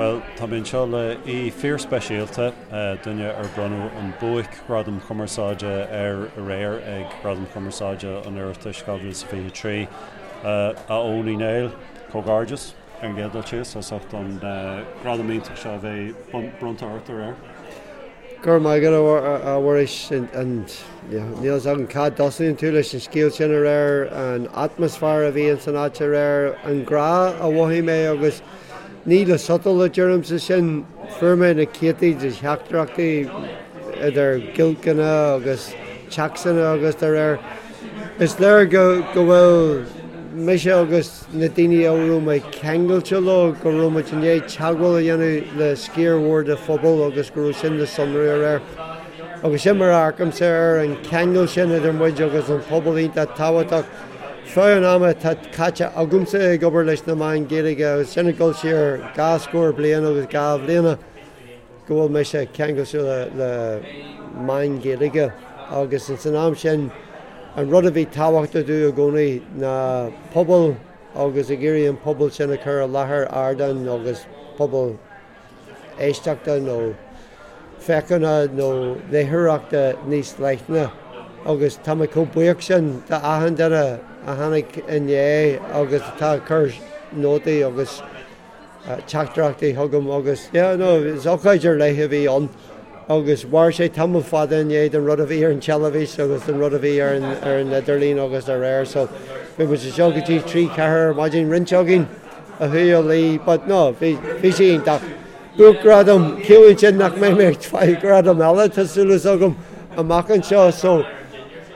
Bhuel, tá mé anseo le aoi fíorspeisialta, duine ar bronnadh an Buaic-Ghradam Cumarsáide air aréir ag Gradaim Chumarsáide an Oireachtais 2023, a Eoin Uí Néill. Comhghairdeas, ar an gcéad dul síos, as ucht an gradam iontach seo a bheith bronnta ort aréir. Go raibh maith agat, a Mhuiris, and níl fhios agam cá dtosaíonn tú leis an scéal sin aréir, an atmaisféar a bhí ins an áit aréir, an grá a mhothaigh mé agus ní le sotal a deirimse sin, fuair mé na céadtaí de theachtaireachtaí idir giolcanna agus téacsanna agus dá réir. Is léir go bhfuil mise agus na daoine a raibh mé ceangailte leo, go raibh muid i ndiaidh teagmháil a dhéanamh le sciar mhór de phobal agus go raibh sin le sonrú aréir. Agus sin mar a amharcaimse air, an ceangal sin idir muid agus an pobal iontach tábhachtach. Feadh an ama atá caite agamsa ag obair leis na meáin Ghaeilge, agus sin ag dul siar dhá scór bliain agus dhá bhliana, go bhfuil mise ceangailte le meáin Ghaeilge agus ins an am sin an rud a bhí tábhachtach domh i gcónaí ná pobal agus ag iarraidh an pobal sin a chur i láthair ardáin agus pobal éisteachta nó féachana nó léitheoireachta níos leithne agus tá mé chomh buíoch sin d'achan duine a tháinig inné agus atá ag cur nótaí agus teachtaireachtaí chugam agus yeah no is ócáid ar leith a bhí ann agus mhair sé tamall fada i ndiaidh don rud a bhí ar an teilifís agus don rud a bhí ar an ar an idirlíon agus dá réir so bhí muid anseo go dtí 3 4 ar maidin roinnt againn a chuaigh a luí but no bhí bhí sé iontach. Buaicghradam, ciallaíonn sin nach mbeidh mé ag fáil gradam eile tá súil agam amach anseo so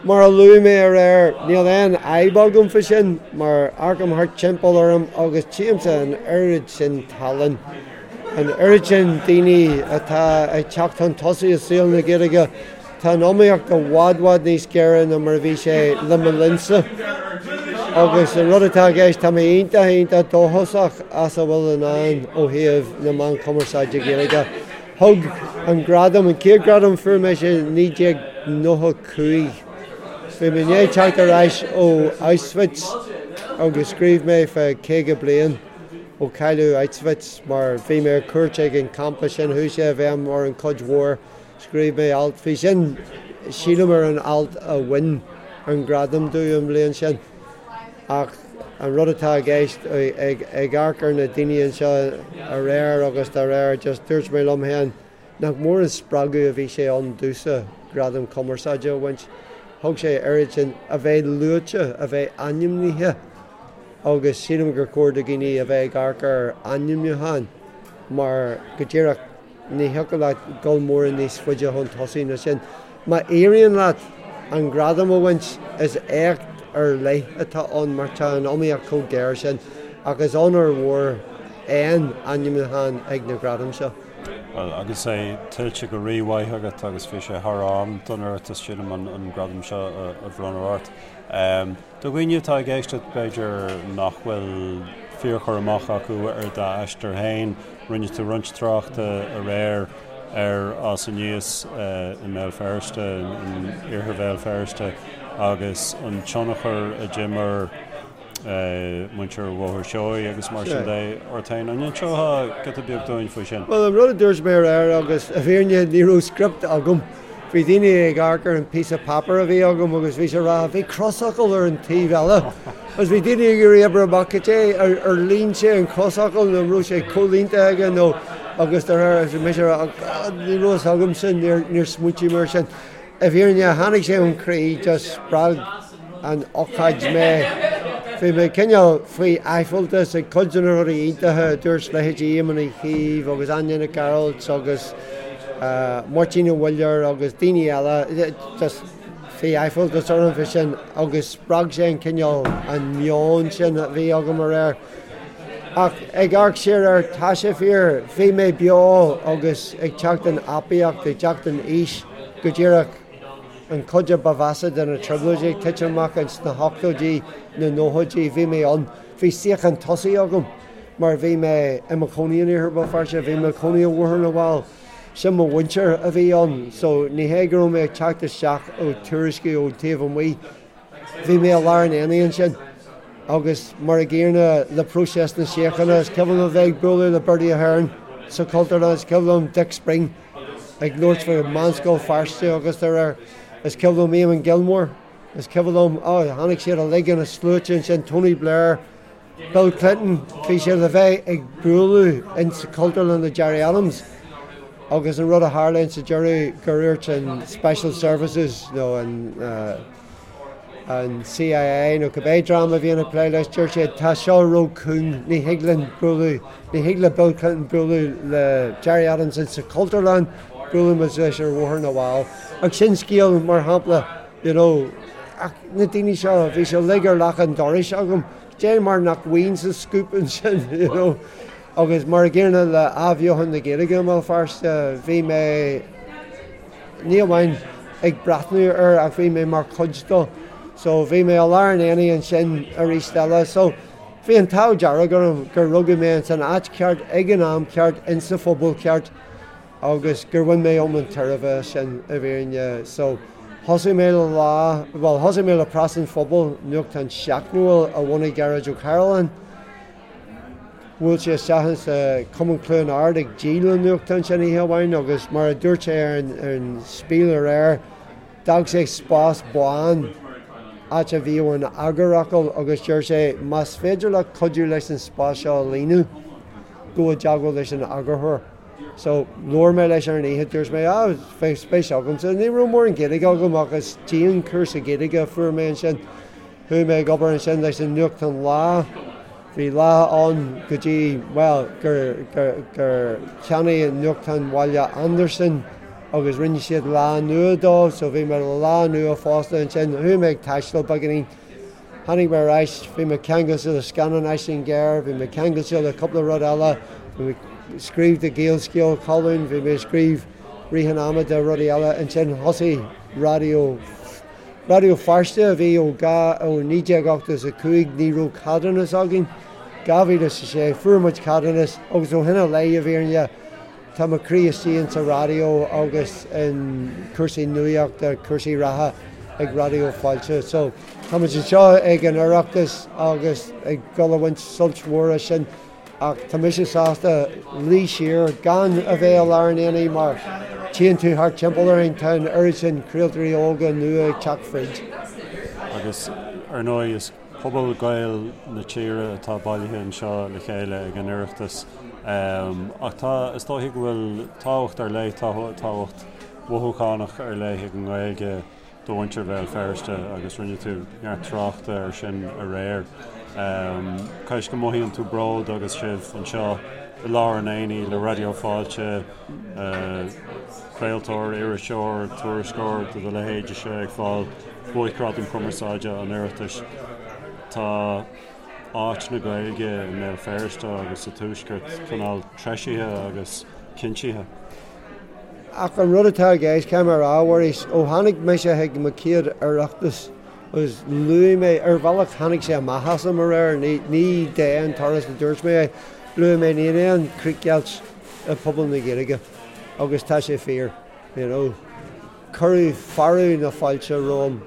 Mar a luaigh mé aréir, níl aon fhadhb agam fá sin, mar amharcaim thart timpeall orm agus tchímse an oiread sin tallann, an oiread sin daoine atá ag teacht chun tosaigh i saol na Gaeilge. Tá an iomaíocht i bhfad bhfad níos géire ná mar a bhí sé le mo linnsa. Agus an rud atá i gceist, tá mé iontach, iontach dóchasach as a bhfuil i ndán ó thaobh na meán cumarsáide Gaeilge. Thug an gradam, an chéad ghradam a fuair mise i 1995. Bhí mé i ndiaidh teacht ar ais ó Auschwitz agus scríobh mé fá 50 bliain ó cailleadh Auschwitz mar bhí mé ar cuairt ag an campa sin, chuaigh sé i bhfeidhm orm cuid mhór. Scríobh mé alt faoi sin, sílim ar an alt a bhain an gradam domh an bhliain sin. Ach an rud atá i gceist, ag amharc ar na daoine anseo aréir agus dá réir, just dúirt mé liom féin nach mór an spreagadh a bhí sé ann domhsa gradam cumarsáide a bhaint. Thug sé oiread sin, a bheith luaite, a bheith ainmnithe agus sílim gur chóir do dhaoine a bheith ag amharc ar ainmniúcháin mar go díreach, Ní thiocfadh leat dul mórán níos faide chun tosaigh ná sin. Má éiríonn leat an gradam a bhaint, is éacht ar leith atá ann mar tá an iomaíocht chomh géar sin ach is onóir mhór aon ainmniúchán ag na gradaim seo. Bhuel, agus é tuillte go rímhaith agat agus bhí sé thar am don Oireachtas, sílim, an gradam seo a bhronnadh ort. Do dhaoine atá ag éisteacht, b'fhéidir nach bhfuil fíorchur amach acu ar d'aistear féin, rinne tú roinnt tráchta aréir ar fhás aníos i mBéal Feirste, in iarthar Bhéal Feirste, agus an tionchar a d'imir muintir Bhóthar Seoighe agus mar sin de ort féin. An inseofá giota beag dúinn faoi sin? Bhuel, an rud a dúirt mé aréir, agus i bhfírinne ní raibh script agam, Bhí daoine ag amharc ar an píosa páipéir a bhí agam agus bhí sé ag rá, bhí crosfhocal ar an taobh eile. Agus bhí daoine ag iarraidh oibriú amach cad é, ar líon sé an crosfhocal nó an raibh sé comhlíonta aige nó agus de réir agus mise ag rá, oh God, ní raibh fhios agam sin, níor, níor smaointigh mé ar sin. I bhfírinne, tháinig sé ón chroí, just spreag an ócáid mé. Bhí mé cineál faoi aiféaltas ag cuid de na rudaí iontacha a dúirt leithéidí Éamon Uí Chuív agus Áine Nic Gearailt agus Máirtín Ó Muilleoir agus daoine eile. Just bhí aiféaltas orm faoi sin agus spreag sé an cineál, an meon sin a bhí agam aréir. Ach ag amharc siar air, tá sé fíor, bhí mé beo agus ag teacht in aibíocht, ag teacht in aois go díreach. an chuid a ba mheasa de na trioblóidí ag titim amach ins na hochtóidí, na nóchaidí, bhí mé ann. Bhí suíochán tosaigh agam mar bhí mé i mo chónaí in Iarthar Bhéal Feirste, bhí mé i mo chónaí i mBóthar na bhFál, sin mo mhuintir a bhí ann so ní hé go raibh mé ag teacht isteach ó tuairiscí ón taobh amuigh, bhí mé i lár an aonaigh ansin. Agus mar a gcéanna le próiseas na síochána, is cuimhin liom a bheith ag bualadh le Bertie Ahern. sa Chultúrlann, is cuimhin liom Dick Spring ag labhairt faoi Meánscoil Feirste agus dá réir. Is cuimhin liom Eamon Gilmore, is cuimhin liom, oh, tháinig siad uilig ina sluaite ansin, Tony Blair, Bill Clinton, bhí siad le bheith ag bualadh in sa Chultúrlann le Gerry Adams agus an rud a tharla in sa deireadh gur dhúirt an Special Services nó an an CIA nó cibé dream a bhíonn ag plé leis, dúirt siad tá seo ró-chúng, ní thig linn bualadh, ní thig le Bill Clinton bualadh le Gerry Adams in sa Chultúrlann, buailfidh muid leis ar Bhóthar na bhFál. Ach sin scéal mar shampla, you know, ach na daoine seo, bhí siad uilig ar leac an dorais agam, Dé mar nach bhfaighinn scoop ansin, you know. Agus mar a gcéanna le athbheochan na Gaeilge i mBéal Feirste, bhí mé ní amháin ag breathnú air ach bhí mé mar chuid dó. So bhí mé i lár an aonaigh ansin arís eile. So bhí an t-ádh dearg orm gur rugadh mé ins an áit cheart ag an am ceart insa phobal ceart. agus gur bhain mé iomlán tairbhe as sin i bhfírinne. So, thosaigh mé le Lá, bhuel, thosaigh mé le Preas an Phobail, nuachtán seachtainiúil a bhunaigh Gearóid Ó Cairealláin. Bhuail sé isteach insa Chumann Chluain Ard ag díol an nuachtáin sin oíche amháin agus mar a dúirt sé ar an, ar an Spiel aréir, d'fhág sé spás bán, áit a bhíodh an eagarfhocal agus deir sé, más féidir leat cuidiú leis an spás seo a líonadh, gabh i dteagmháil leis an eagarthóir. So, labhair mé leis ar an oíche, dúirt mé, ah, bheadh spéis agamsa. Ní raibh mórán Gaeilge agam ach is dianchúrsa Gaeilge a fuair mé ansin. Chuaigh mé ag obair ansin leis an nuachtán Lá. Bhí Lá ann go dtí, bhuel, gur, gur, gur cheannaigh an nuachtán Bhaile Andarsan agus rinne siad Lá Nua dó, so bhí mé le Lá Nua fosta ansin. Chuaigh mé ag taisteal beagáinín. Tháinig mé ar ais, bhí mé ceangailte le scannán Aisling Ghéar, bhí mé ceangailte le cúpla rud eile, bhí mé ag scríobh do Gaelscéal, colún, bhí mé ag scríobh rith an ama do rudaí eile. Ansin thosaigh Raidió, Raidió Feirste a bhí ó ó 1985, ní raibh ceadúnas againn. 2006 fuair muid ceadúnas agus ó shin i leith, i bhfírinne, Tá mo chroí istigh insa raidió agus in cúrsaí nuachta, cúrsaí reatha ag Raidió Fáilte. So, tá muid anseo ag an Oireachtas agus ag dul a bhaint sult mhór as sin ach tá mise sásta luí siar gan a bheith i lár an aonaigh mar tchíonn tú thart timpeall orainn, tá an oiread sin craoltóirí óga nua ag teacht fríd. Agus ar ndóigh is Pobal Gael na tíre atá bailithe anseo le chéile ag an Oireachtas. Ach tá, is dóichí go bhfuil tábhacht ar leith, tábhacht mhothúchánach ar leith ag an nGaeilge do mhuintir Bhéal Feirste agus rinne tú neart tráchta air sin aréir. Cá bhfios go mothaíonn tú bród agus sibh anseo i lár an aonaigh le Raidió Fáilte, craoltóir, iriseoir, tuairisceoir de do leithéidese ag fáil Buaicghradam Cumarsáide an Oireachtais. Tá áit na Gaeilge i mBéal Feirste agus sa Tuaisceart cineál treisithe agus cinntithe. Ach an rud atá i gceist, caithfidh mé a rá, a Mhuiris, ó tháinig mise chuig mo chéad Oireachtas agus luaigh mé, ar bhealach tháinig sé amach asam aréir, ní d'aon turas a dúirt mé é, luaigh mé níl aon chríochdheighilt i bpobal na Gaeilge agus tá sé fíor, you know. Cuireadh fearadh na fáilte romham.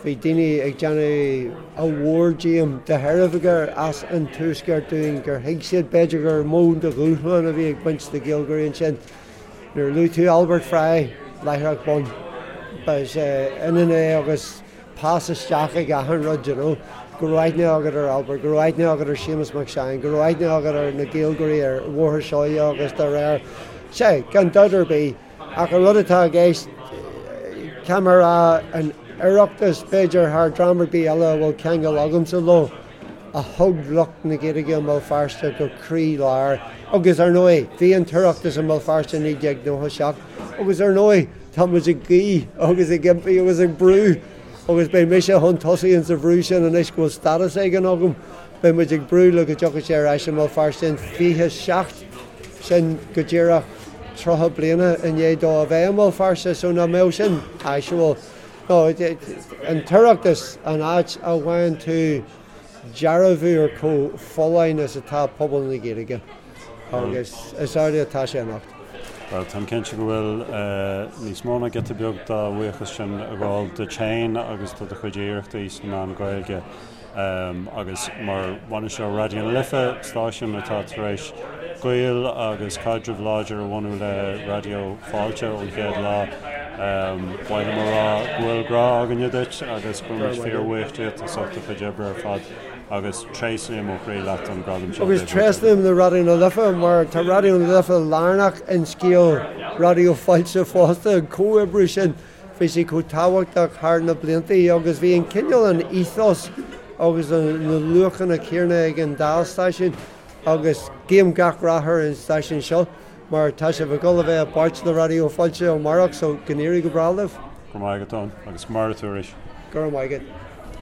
Bhí daoine ag déanamh a mhór díom de thairbhe gur as an Tuaisceart dúinn, gur thuig siad b'fhéidir gur mó de dhúshlán a bhí ag baint le Gaeilgeoirí ansin. Nuair a luaigh tú Albert Fry, láithreach bonn, ba ionann é agus pas isteach ag achan rud, you know. Go raibh aithne agat ar Albert, go raibh aithne agat ar Séamus Mac Seáin, go raibh aithne agat ar na Gaeilgeoirí ar Bhóthar Seoighe agus dá réir. Sea, gan dabht ar bith. Ach an rud atá i gceist, caithfidh mé a rá, an Oireachtas, b'fhéidir thar dream ar bith eile a bhfuil ceangal agamsa leo, a thug lucht na Gaeilge i mBéal Feirste go croí lár. Agus ar ndóigh, bhí an tOireachtas i mBéal Feirste i 1997 agus ar ndóigh, tá muid ag guí agus ag impí agus ag brú agus beidh mise chun tosaigh insa bhrú sin anois go bhfuil stádas éigin agam. Beidh muid ag brú le go dtiocfaidh sé ar ais i mBéal Feirste in 27, sin go díreach 30 bliana i ndiaidh dó a bheith i mBéal Feirste, so nach mbeadh sin áisiúil. No, an tOireachtas, an áit a bhfaigheann tú dearbhú ar chomh folláin is atá pobal na Gaeilge agus is amhlaidh atá sé anocht. Bhuel, táim cinnte go bhfuil níos mó ná giota beag dá bhuíochas sin ag gabháil duit féin agus do do chuid iarrachtaí sna meáin Ghaeilge. Agus mar bhainisteoir Raidió na Life, stáisiún atá tar éis gaol agus caidreamh láidir a bhunú le Raidió Fáilte ón chéad lá. Ba mhaith liom a rá go bhfuil grá againne duit agus go bhfuil muid fíorbhuíoch díot as ucht do chuid oibre ar fad agus tréaslaím ó chroí leat an gradam seo. Agus tréaslaím le Raidió na Life mar tá Raidió na Life lárnach in scéal Raidió Fáilte fosta, an comhoibriú sin bhí sé chomh tábhachtach thar na blianta agus bhí an cineál an ethos agus na luachanna céanna ag an dá stáisiún agus guím gach rath ar an stáisiún seo mar tá sibh ag dul a bheith i bpáirt le Raidió Fáilte amárach so go n-éirí go breá libh. Go raibh maith agat Eoin agus maire tú arís. Go raibh maith agat.